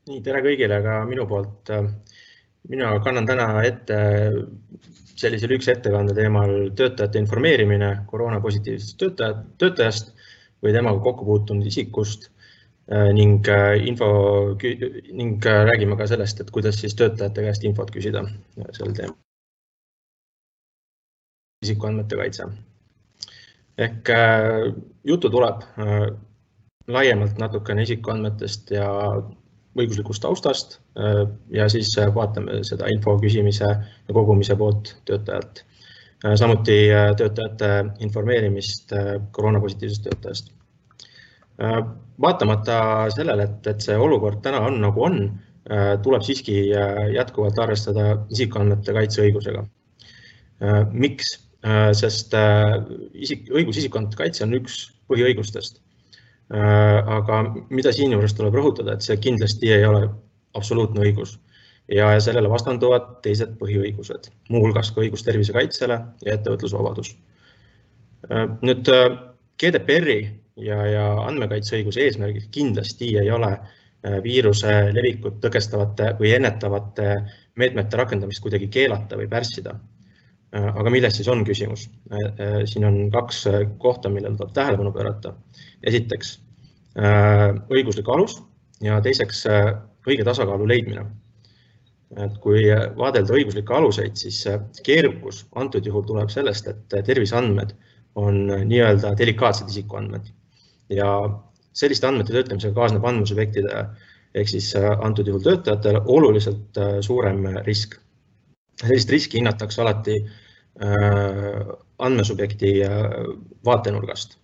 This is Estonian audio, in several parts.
Nii, tere kõigile ka minu poolt. Mina kannan täna ette sellise lühikese ettekande teemal töötajate informeerimine koroonapositiivsest töötajast või temaga kokku puutunud isikust ning räägime ka sellest, et kuidas siis töötajate käest infot küsida sel teemal. Isikuandmete kaitse. Ehk juttu tuleb laiemalt natukene isikuandmetest ja õiguslikust taustast ja siis vaatame seda info küsimise ja kogumise poolt töötajalt. Samuti töötajate informeerimist koroonapositiivsest töötajast. Vaatamata sellele, et see olukord täna on nagu on, tuleb siiski jätkuvalt arvestada isikuandmete kaitseõigusega. Miks? Sest õigus isikuandmete kaitse on üks põhiõigustest. Aga mida siin juures tuleb rõhutada, et see kindlasti ei ole absoluutne õigus ja sellele vastanduvad teised põhiõigused, muuhulgas ka õigus tervise kaitsele ja ettevõtlusvabadus. Nüüd GDPR-i ja andmekaitseõiguse eesmärgid kindlasti ei ole viiruse levikut tõkestavate või ennetavate meetmete rakendamist kuidagi keelata või pärssida. Aga milles siis on küsimus? Siin on kaks kohta, millele tuleb tähelepanu pöörata. Esiteks õiguslik alus ja teiseks õige tasakaalu leidmine. Kui vaadelda õiguslikke aluseid, siis keerukus antud juhul tuleb sellest, et terviseandmed on nii-öelda delikaatsed isikuandmed ja selliste andmete töötlemisega kaasneb andmesubjektide ehk siis antud juhul töötajatele oluliselt suurem risk. Sellist riski hinnatakse alati andmesubjekti vaatenurgast,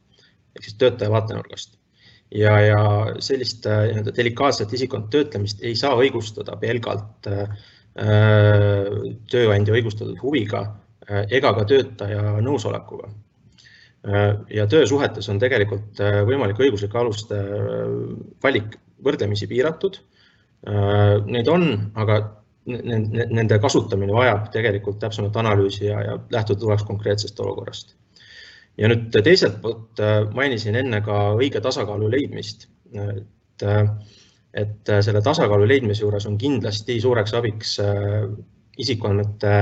ehk siis töötaja vaatenurgast. Ja sellist delikaatset isikuandmete töötlemist ei saa õigustada pelgalt tööandja õigustatud huviga ega ka töötaja nõusolekuga. Ja töösuhetes on tegelikult võimalik õiguslike aluste valik võrdlemisi piiratud. Neid on, aga nende kasutamine vajab tegelikult täpsemat analüüsi ja lähtuda tuleks konkreetsest olukorrast. Ja nüüd teiselt poolt mainisin enne ka õige tasakaalu leidmist. Et selle tasakaalu leidmise juures on kindlasti suureks abiks isikuandmete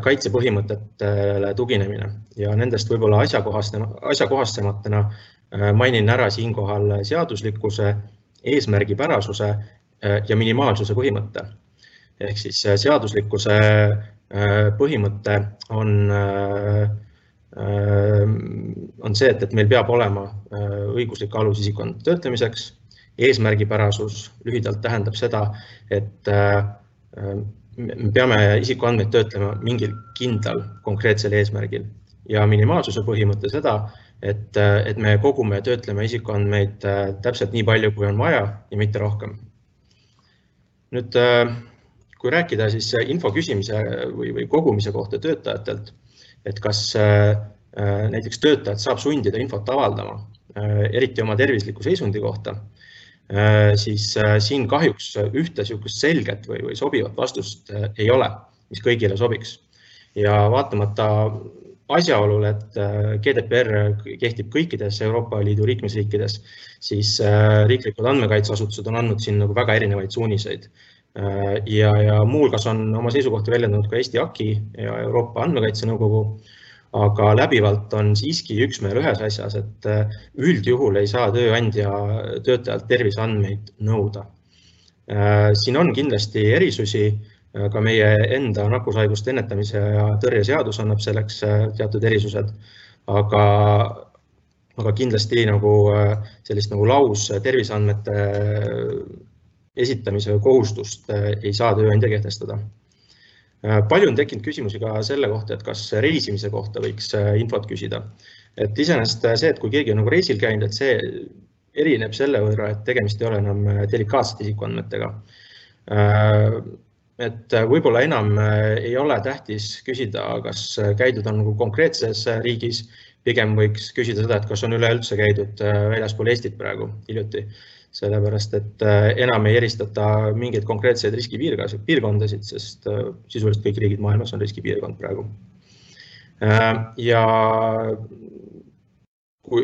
kaitsepõhimõtetele tuginemine ja nendest võib-olla asjakohasematena mainin ära siinkohal seaduslikkuse, eesmärgipärasuse ja minimaalsuse põhimõtte. Ehk siis seaduslikkuse põhimõte on see, et meil peab olema õiguslik alus isikuandmete töötlemiseks. Eesmärgipärasus lühidalt tähendab seda, et me peame isikuandmeid töötlema mingil kindlal konkreetsel eesmärgil ja minimaalsuse põhimõte seda, et me kogume ja töötleme isikuandmeid täpselt nii palju, kui on vaja ja mitte rohkem. Nüüd, kui rääkida siis info küsimise või kogumise kohta töötajatelt, et kas näiteks töötajad saab sundida infot avaldama, eriti oma tervisliku seisundi kohta, siis siin kahjuks ühte selget või sobivat vastust ei ole, mis kõigile sobiks. Ja vaatamata asjaolul, et GDPR kehtib kõikides Euroopa Liidu liikmesriikides, siis riiklikud andmekaitseasutused on andnud siin väga erinevaid suuniseid. Ja muuhulgas on oma seisukohti väljendanud ka Eesti AKI ja Euroopa Andmekaitse Nõukogu, aga läbivalt on siiski üksmeel ühes asjas, et üldjuhul ei saa tööandja töötajalt terviseandmeid nõuda. Siin on kindlasti erisusi, ka meie enda nakkushaiguste ennetamise ja tõrje seadus annab selleks teatud erisused, aga kindlasti sellist laus terviseandmete esitamise kohustust ei saa tööandja kehtestada. Palju on tekkinud küsimusi ka selle kohta, et kas reisimise kohta võiks infot küsida. Et iseenesest see, et kui keegi on reisil käinud, et see erineb selle võrra, et tegemist ei ole enam delikaatsete isikuandmetega. Et võib-olla enam ei ole tähtis küsida, kas käidud on konkreetses riigis, pigem võiks küsida seda, et kas on üleüldse käidud väljaspool Eestit praegu hiljuti. Sellepärast, et enam ei eristata mingeid konkreetseid riskipiirkondasid, sest sisuliselt kõik riigid maailmas on riskipiirkond praegu. Ja kui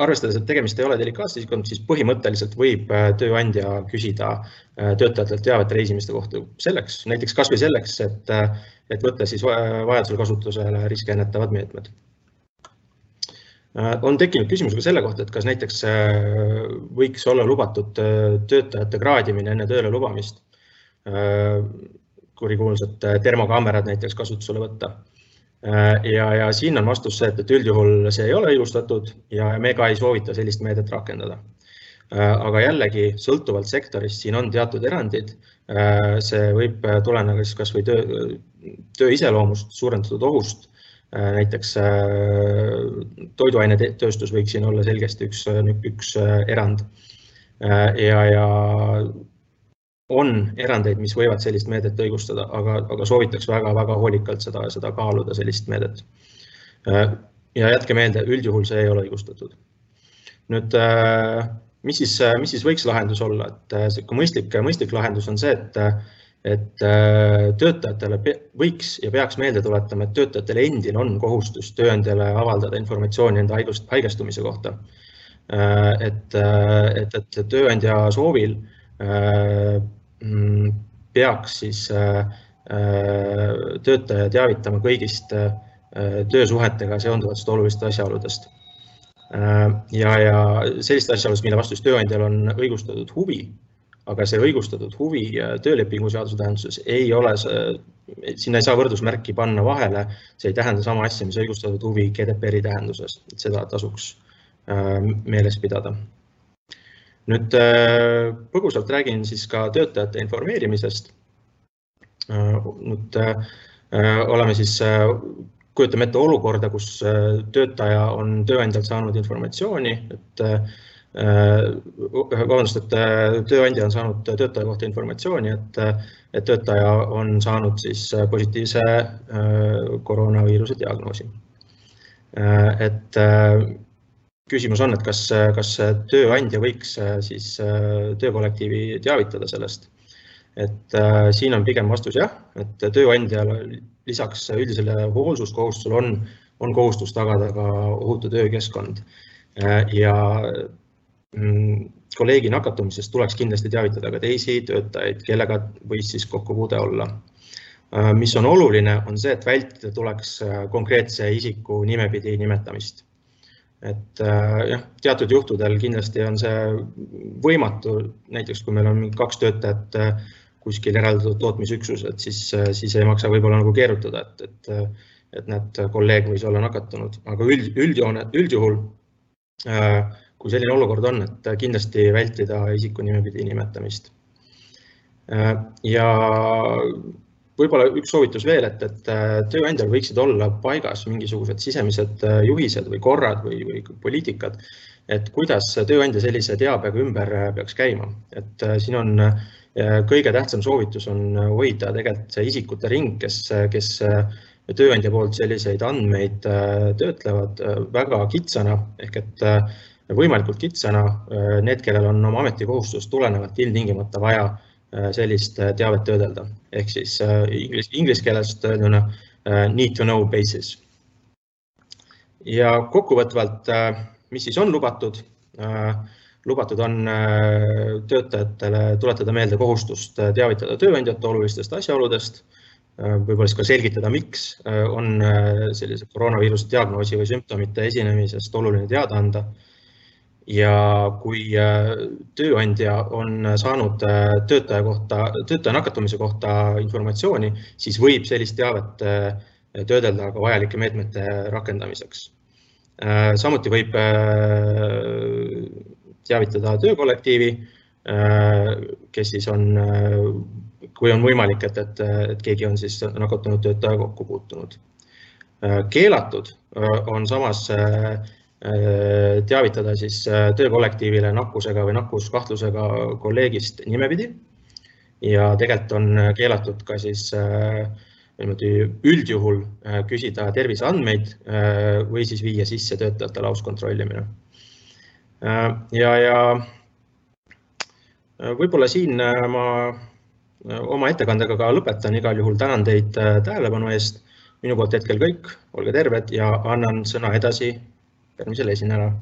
arvestades, et tegemist ei ole delikaatse isikuga, siis põhimõtteliselt võib tööandja küsida töötajatelt teavet reisimiste kohta selleks, näiteks kas või selleks, et võtta siis vajadusel kasutusele riski ennetavad meetmed. On tekkinud küsimus ka selle kohta, et kas näiteks võiks olla lubatud töötajate kraadimine enne tööle lubamist, kurikuulsad termokaamerad näiteks kasutusele võtta. Ja siin on vastus see, et üldjuhul see ei ole õigustatud ja me ka ei soovita sellist meedet rakendada. Aga jällegi, sõltuvalt sektorist, siin on teatud erandid. See võib tuleneda kas või töö iseloomust, suurendatud ohust. Näiteks toiduainetööstus võiks siin olla selgesti üks erand. Ja on erandeid, mis võivad sellist meedet õigustada, aga soovitaks väga hoolikalt seda kaaluda, sellist meedet. Ja jätke meelde, üldjuhul see ei ole õigustatud. Nüüd, mis siis võiks lahendus olla? Mõistlik lahendus on see, et töötajatele võiks ja peaks meelde tuletama, et töötajatele endil on kohustus tööandjale avaldada informatsiooni enda haigestumise kohta. Et tööandja soovil peaks siis töötaja teavitama kõigist töösuhetega seonduvatest olulistest asjaoludest. Ja sellist asjaolust, mille vastu tööandjal on õigustatud huvi, aga see õigustatud huvi töölepingu seaduse tähenduses ei ole, sinna ei saa võrdusmärki panna vahele, see ei tähenda sama asja, mis õigustatud huvi GDPR-i tähenduses, et seda tasuks meeles pidada. Nüüd põgusalt räägin siis ka töötajate informeerimisest. Nüüd oleme siis, kujutame ette olukorda, kus töötaja on tööandjalt saanud informatsiooni, et tööandja on saanud töötaja kohta informatsiooni, et töötaja on saanud siis positiivse koroonaviiruse diagnoosi. Et küsimus on, et kas tööandja võiks siis töökollektiivi teavitada sellest. Et siin on pigem vastus jah, et tööandjal lisaks üldisele hoolsuskohustusele on kohustus tagada ka ohutu töökeskkond. Ja kolleegi nakatumisest tuleks kindlasti teavitada ka teisi töötajaid, kellega võis siis kokkupuude olla. Mis on oluline, on see, et vältida tuleks konkreetse isiku nimepidi nimetamist. Et jah, teatud juhtudel kindlasti on see võimatu, näiteks kui meil on 2 töötajat kuskil eraldatud tootmisüksused, siis ei maksa võib-olla nagu keerutada, et need kolleeg võis olla nakatunud. Aga üldjuhul, kui selline olukord on, et kindlasti vältida isiku nimepidi nimetamist. Ja võib-olla üks soovitus veel, et tööandjal võiksid olla paigas mingisugused sisemised juhised või korrad või poliitikad, et kuidas tööandja sellise teabega ümber peaks käima. Et siin on kõige tähtsam soovitus on hoida tegelikult see isikute ring, kes tööandja poolt selliseid andmeid töötlevad väga kitsana, ehk et võimalikult kitsana need, kellel on oma ametikohustust tulenevalt ilmtingimata vaja sellist teavet töödelda. Ehk siis inglise keelest öelduna need to know basis. Ja kokkuvõtvalt, mis siis on lubatud? Lubatud on töötajatele tuletada meelde kohustust teavitada tööandjate olulistest asjaoludest, võib-olla siis ka selgitada, miks on sellise koroonaviiruse diagnoosi või sümptomite esinemisest oluline teada anda. Ja kui tööandja on saanud töötaja nakatumise kohta informatsiooni, siis võib sellist teavet töödelda ka vajalike meetmete rakendamiseks. Samuti võib teavitada töökollektiivi, kes siis on, kui on võimalik, et keegi on siis nakatunud töötaja kokku puutunud. Keelatud on samas teavitada siis töökollektiivile nakkusega või nakkuskahtlusega kolleegist nimepidi ja tegelikult on keelatud ka siis üldjuhul küsida terviseandmeid või siis viia sisse töötajate lauskontrollimine. Ja võib-olla siin ma oma ettekandega ka lõpetan, igal juhul tänan teid tähelepanu eest. Minu poolt hetkel kõik, olge terved ja annan sõna edasi järgmisele esinejale.